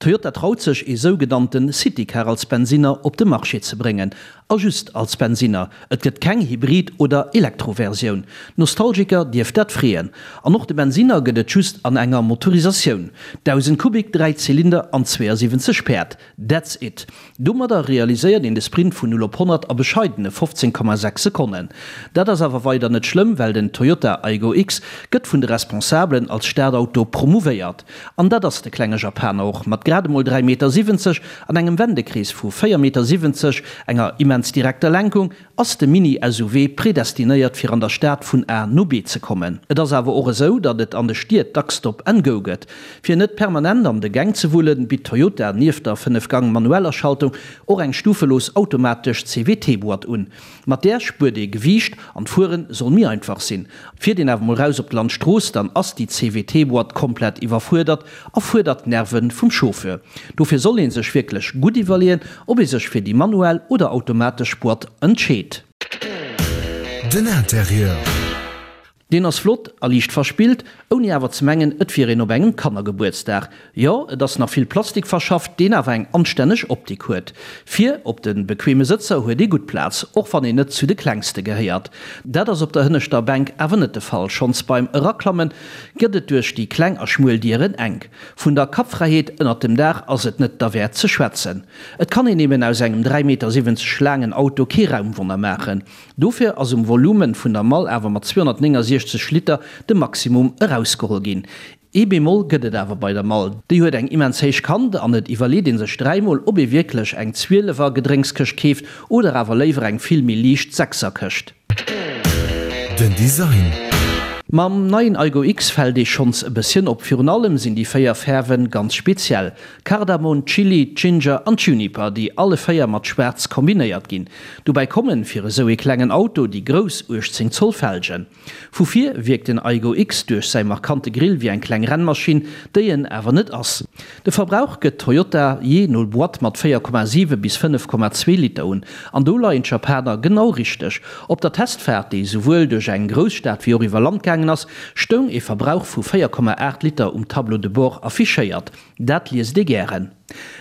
Toyota traut sech, ee sougenannte Citycar als Bensinner op de Marché ze bréngen. A just als Bensinner. Et gëtt keng Hybrid oder Elektroversioun. D'Nostalgiker dierft dat freeën. An och de Bensinner gëtt et just an enger Motorisatioun. 1.000 Kubik, 3 Zylinder an 72 Päerd. That's it. Domadder realiséiert een de Sprint vun 0 op 100 a bescheidene 15,6 Sekonnen. Dat ass awer weider net schlëmm, well den Toyota Aygo X gëtt vun de Responsabelen als Stadauto promouvéiert. An dat ass de klenge Japaner och. Mat grad emol 3,70 Meter an engem Wendekrees vu 4,70 Meter, enger immens direkter Lenkung, Ass de Mini-SUV predestinéiert fir an der Stad vun A no B ze kommen? Et ass awer och esou, datt et an de Stied dacks Stop and Go gëtt. Fir net permanent an de Gäng ze wullen, bitt Toyota nieft der 5 Gang manueller Schaltung och eng stufelos automatesch CVT-Boîte un. Mat där spuert ee Gewiicht an d'Fuere soll méi einfach sinn. Fiert een awer mol raus op d'Landstrooss, dann ass déi CVT-Boîte komplett iwwerfuerdert a fuerdert d'Nerve vum Chauffeur. Dofir soll ee sech wierklech gutt iwwerleeën, ob ee sech fir déi manuell oder automatesch Boîte entscheet. Den Interieur. Deen ass flott a liicht verspillt, ouni awer ze mengen, et wier een op engem Kannergebuertsdag. Jo, et ass nach vill Plastik verschafft, deen awer eng anstänneg Optik huet. Vir op de bequeme Sëtzer huet ee gutt Plaz, och wann een net zu de klengste gehéiert. Dat ass op der hënneschter Bänk awer net de Fall, schonns beim Eraklammen gëtt et duerch déi kleng a schmuel Dieren enk. Vun der Kappfräiheet ënnert dem Daach ass et net derwäert ze schwätzen. Et kann een eben aus engem 3,70 Meter laangen Auto kee Raumwonner maachen. Dofir ass um Volumen vun der Mall awer mat 269 Liter de Maximum erausgeholl ginn. Ee Bémol gëtt et awer bei der Mall, déi huet eng immens héich Kant an et iwwerleet ee sech dräimol, ob ee wierklech eng Zwielefer Gedrénkskëscht keeft oder awer léiwer eng vill méi liicht Sechserkëscht. Den Design. Mam neien Aygo X fält ee schonns e bësschen op. Virun allem sinn déi 4 Fäerwen ganz speziell, Kardamon, Chili, Ginger an Juniper, déi alle 4 mat schwaarz kombinéiert ginn. Dobäi kommen, fir esou ee klengen Auto, déi grouss 18 Zoll Felgen. Vu vir wierkt den Aygo X duerch säi markante Grill wéi eng kleng Rennmaschinn, déi en awer net ass. De Verbrauch gëtt Toyota jee no Boîte mat 4,7 bis 5,2 Liter un. An do leien d'Japaner genau richteg. Op der Testfaart, déi souwuel duerch eng Grousstad wéi och iwwer Land gaangen ass, stoung ee Verbrauch vu 4,8 Liter um Tableau de bord affichéiert. Dat liest ee gären.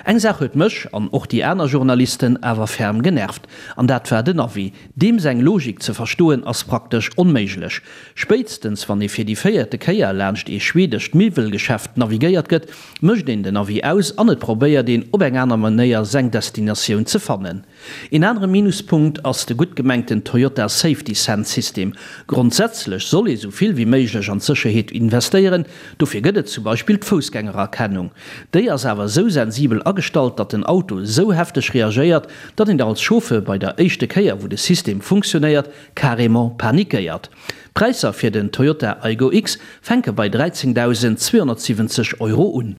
Eng Saach huet mech, an och déi aner Journalisten, awer ferm genervt, an dat war den Navi. Deem seng Logik ze verstoen ass praktesch onméiglech. Spéitstens wann ee fir déi véierte Kéier laanscht ee schwedescht Miwwelgeschäft navigéiert gëtt, mécht een den Navi aus an et probéiert een op eng aner Manéier seng Destinatioun ze fannen. Een anere Minuspunkt ass de gutt gemengten Toyota Safety Sense System. Grondsätzlech soll ee sou vill wéi méiglech an d'Sécherheet investéieren, dofir gëtt et zum Beispill d'Foussgängererkennung. Déi ass awer esou sensibel agestallt, datt den Auto esou hefteg reagéiert, datt een als Chauffeur bei der éischte Kéier wou de System funktionéiert, carrément panikéiert. D'Präisser fir den Toyota Aygo X fänke bei 13.270 Euro un.